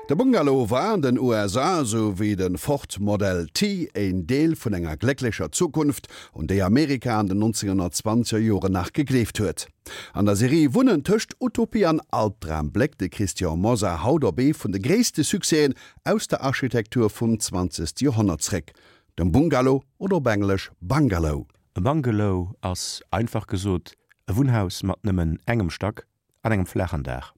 De Bungalow war an den USA, esou wéi de Ford Model T, een Deel vun enger glécklecher Zukunft, un déi Amerika an den 1920er Joren nach gegleeft huet. An der Serie Wunnen tëscht Utopie an Albdram bléckt de Christian Mosar haut op ee vun de gréisste Succèsen aus der Architektur vum zwanzegste Joerhonnert zréck, dem Bungalow oder op Englesch Bungalow. E Bungalow ass, einfach gesot, e Wunnhaus mat nëmmen engem Stack an engem flaachen Daach.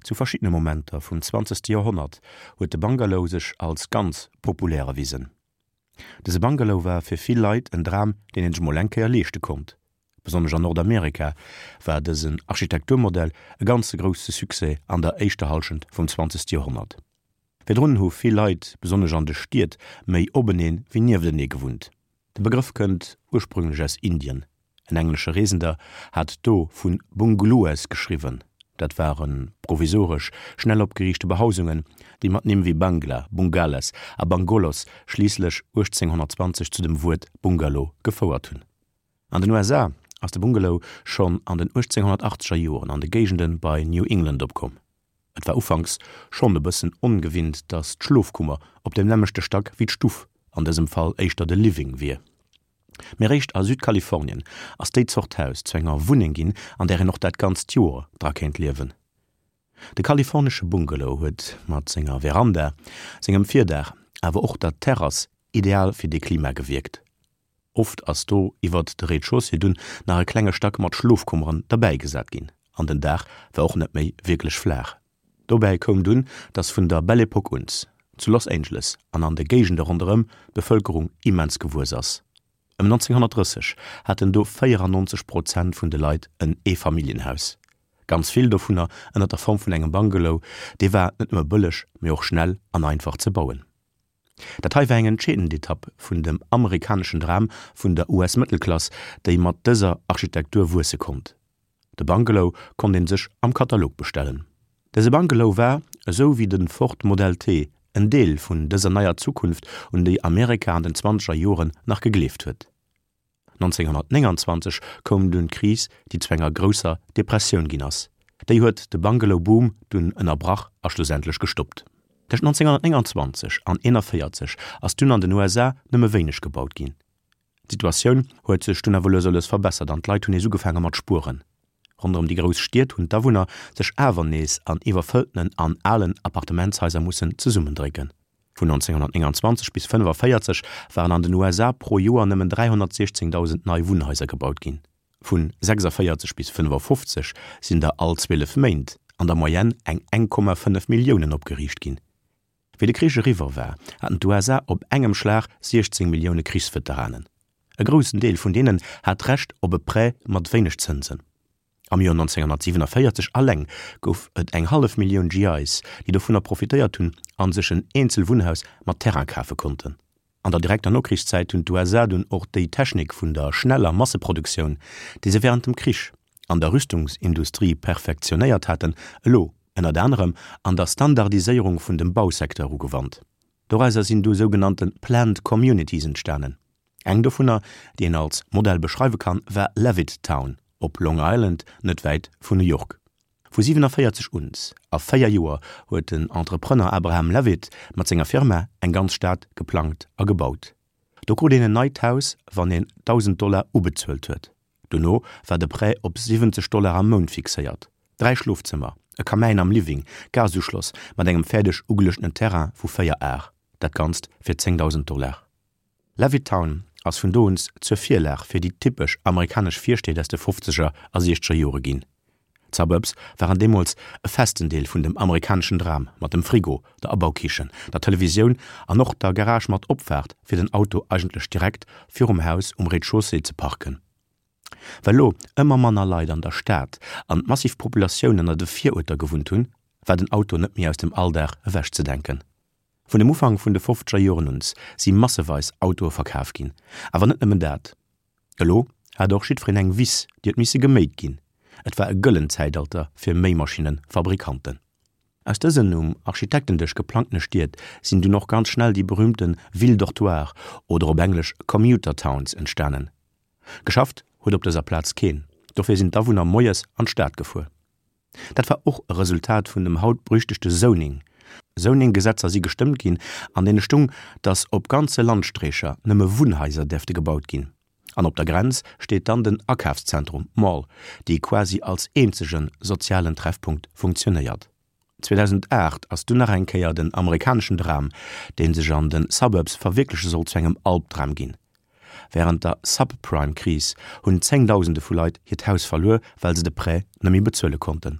Zu verschiddene Momenter vum zwanzegste Joerhonnert huet de Bungalow sech als ganz populär erwisen. Dëse Bungalow war fir vill Leit en Dram, deen een sech mol eng Kéier leeschte konnt. Besonnesch an Nordamerika war dësen Architekturmodell e ganze grousse Succès an der éischter Hallschent vum zwanzegste Joerhonnert. Virdrun hu vill Leit, besonnesch an de Stied, méi openeen wéi nieftenee gewunnt. De Begrëff kënnt ursprünglech aus Indien. En englesche Reesender hat do vu Bungalows geschriwwen. Dat ware provisoresch, schnell opgeriichte Behausungen, déi mat Nimm wéi Bangla, Bungales a Bangolos schliisslech 1820 zu dem Wuert Bungalow gefouert hunn. An den USA ass de Bungalow schonn an den 1880er Joren an de Géigende bei New England opkomm. Et war ufanks schonn e bëssen ongewinnt, datt d'Schlofkummer op dem nämmlechte Stack wéi d'Stuff, an dësem Fall éischter de Living, wier. Mee réischt a Südkalifornien ass déi Zort Haus zu enger Wunneng ginn, an där een och dat ganzt Joer dra kéint liewen. De kalifornesche Bungalow huet mat senger Veranda, sengem Virdaach, awer och der Terrass ideal fir dee Klima gewierkt. Oft ass do iwwert de Rez-de-chaussée dunn nach e klenge Stack mat Schlofkummeren derbäigesat ginn an den Daach war och net méi wierklech flaach. Dobäi koum dunn, dass vun der Belle Epoque uns zu Los Angeles an an de Géigende ronderëm d'Bevëlkerung immens gewuess ass. Ëm 1930 haten do 94 Prozent vun de Leit en Eefamilljenhaus, ganz vill dovunner ënner der Form vun engem Bungalow. Dee war net nëmme bëlleg, mee och schnell an einfach ze bauen. Dat hei war eng entscheedend Etapp vun dem amerikaneschen Dram vun der US-Mëttelklass, déi mat dëser Architektur wuesse konnt. De Bungalow konnt een sech am Katalog bestellen. Dëse Bungalow war, esou wéi de Ford Model T, en Deel vun dëser neier Zukunft, un déi Amerika an den zwanzeger Joren nach gegleeft huet. 1929 koum dunn d'Kris, déi zu enger grousser Depressioun ginn ass. Déi huet de Bungalow-Boom dunn ënnerbrach a schlussendlech gestoppt. Tëscht 1929 an 1941 ass dunn an den USA nëmme wéineg gebaut ginn. D'Situatioun huet sech dunn awer lues a lues verbessert an d'Leit hunn nees ugefaange mat spueren. Ronderëm déi grouss Stied hunn d'Awunner sech awer nees an iwwerfëlltenen an alen Appartementshaiser mussen zesummendrécken. Vun 1929 bis 1945 waren an den USA pro Joer nëmmen 316.000 nei Wunnhaiser gebaut ginn. Vun 46 bis 55 sinn der all 12 Méint an der Moyenne eng 1,5 Milliounen opgeriicht ginn. Wéi de Krich eriwwer war, haten d'USA op engem Schlag 16 Millioune Krichsveteranen. E groussen Deel vun deenen hat d'Recht op e Prêt mat wéineg Zënsen. Am Joer 1947 alleng gouf et eng hallef Millioun GIs, déi dovunner profitéiert hunn a sech en eenzel Wunnhaus mat Terrain kafe konnten. An der direkter Nokrichszäit hunn d'USA dunn och déi Technik vun der schneller Masseproduktioun, déi se wärend dem Krich an der Rüstungsindustrie perfektionéiert haten, elo ënnert anerem an der Standardiséierung vun dem Bausecteur ugewannt. Dorauser sinn du sougenannte Planned Communities entstanen. Eng dovunner, déi een als Modell beschreiwe kann, war Levittown op Long Island, net wäit vun New York. Vu 47 uns a 4 Joer huet den Entrepreneur Abraham Levitt mat senger Firma eng ganz Stad geplangt a gebaut. Do krut een en neit Haus, wann een 1.000 Dollar ubezuelt huet. Dono war de Prêt op 70 Dollar am Mount fixéiert. Dräi Schlofzëmmer, e Kamäin am Living, Gasuschloss mat engem fäerdeg ugeluechtenen Terrain vu 4 Ar, dat Ganzt fir 10.000 Dollar. Levittown ass vun do uns zur Virlag fir déi typesch amerikanesch Virstied aus de fofzeger a siechzeger Jore ginn. D'Suburbs waren deemools e festen Deel vun dem amerikaneschen Dram mat dem Frigo, der Abaukichen, der Televisioun an och der Garage mat Opfaart fir den Auto eigentlech direkt virum Haus um Rez-de-chaussée ze parken. Well lo ëmmer manner Leit an der Stad an d'massiv Populatioun ënner de Viruerter gewunnt hunn, war den Auto net méi aus dem Alldag ewechzedenken. Vun dem Ufank vun de fofzeger Joren uns si masseweis Autoe verkaf ginn. Awer net nëmmen dat. Elo hat och jiddwereen eng Wiss, déi huet misse geméit ginn. Et war e gëllent Zäitalter fir Méimaschinne-Fabrikanten. Aus dësen um Architektendësch geplangtene Stied sinn dunn och ganz schnell déi berühmte Villes dortoirs oder op Englesch Commuter Towns entstanen. Geschafft huet op dëser Plaz keen, dofir sinn d'Awunner moies an d'Stad gefuer. Dat war och e Resultat vun dem haut berüchtegte Zoning. Zoning-Gesetzer si gestëmmt ginn, an deene stung, datt op ganze Landstreecher nëmme Wunnhaiser däerfte gebaut ginn. An op der Grenz steet dann den Akafszentrum, Mall, dee quasi als eenzege sozialen Treffpunkt funktionéiert. 2008 ass dunn nach eng Kéier den amerikaneschen Dram, dee sech an de Suburbs verwierkleche sollt, zu engem Albdram ginn. Wärend der Subprime-Kris hunn Zéngdausende vu Leit hiert Haus verluer, well se de Prêt net méi bezuele konnten.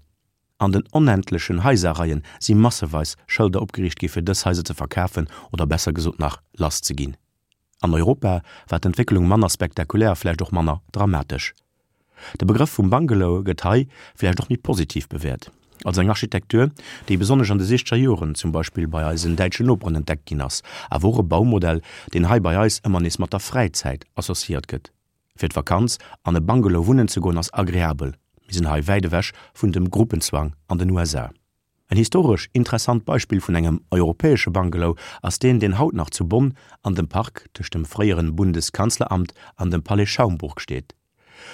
An den onendlechen Haiserreien si masseweis Schëlder opgeriicht gi fir dës Haiser ze verkafen oder besser gesot nach lass ze ginn. An Europa war d'Entwécklung manner spektakulär a vläicht och manner dramatesch. De Begrëff vum Bungalow gëtt hei vläicht och méi positiv bewäert, als eng Architektur, déi besonnesch an de siechzeger Joren zum Beispill bei eisen däitschen Noperen entdeckt ginn ass, awer och e Baumodell, deen hei bei eis ëmmer nees mat der Fräizäit associéiert gëtt. Fir d'Vakanz an e Bungalow wunnen ze goen ass agreabel, mir sinn hei wäit ewech vun dem Gruppenzwang an den USA. En historesch interessant Beispill vun engem europäesche Bungalow ass deen, deen haut nach zu Bonn an dem Park tëscht dem fréieren Bundeskanzleramt an dem Palais Schaumburg steet.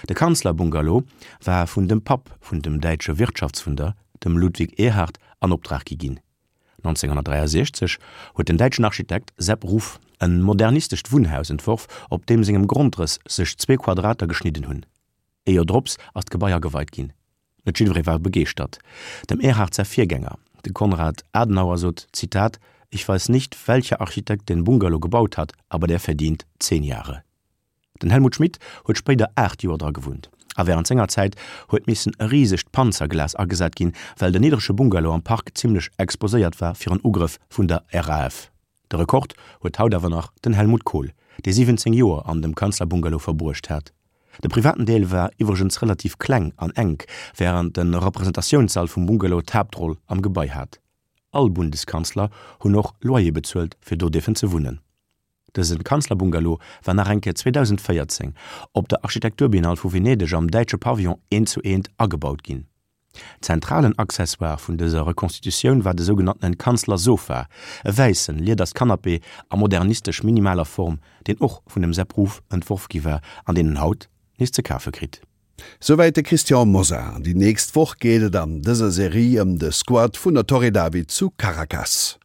De Kanzlerbungalow war vun dem Papp vun dem däitsche Wirtschaftswunder, dem Ludwig Erhard, an Optrag gi ginn. 1963 huet den däitschen Architekt Sepp Ruff en modernistescht Wunnhaus entworf, op deem sengem Grondrëss sech zwee Quadrater geschnidden hunn. Ee Joer drops ass d'Gebai ageweit ginn. Net jiddweree war begeeschtert. Dem Erhard säi Virgänger, de Konrad Adenauer sot, Zitat, Ich weiß nicht, welcher Architekt den Bungalow gebaut hat, aber der verdient zehn Jahre. Den Helmut Schmidt huet spéider 8 Joer dra gewunnt a wärend senger Zäit huet missen e risegt Panzerglas agesat ginn, well den niddrege Bungalow am Park zimmlech exposéiert war fir en Ugrëff vun der RAF. De Rekord huet haut awer nach den Helmut Kohl, dee 17 Joer an dem Kanzlerbungalow verbruecht hat. De privaten Deel war iwwregens relativ kleng an enk, wärend de Representatiounssall vum Bungalow d'Haaptroll am Gebai hat. All Bundeskanzler hunn och Loyer bezuelt, fir do dierfen ze wunnen. Dëse Kanzlerbungalow war nach eng Kéier 2014 op der Architekturbiennale vu Venedeg am däitsche Pavillon eent zu eent agebaut ginn. Zentralen Accessoire vun dëser Reconstitutioun war de sougenanntenen Kanzlersofa, e wäissen, lieders Canapé a modernistesch minimaler Form, deen och vun dem Sepp Ruff entworf gi war an deen en haut nees ze kafe kritt. Souwäit de Christian Mosar. Déi nächst Woch geet et an dëser Serie ëm de Squat vun der Torre David zu Caracas.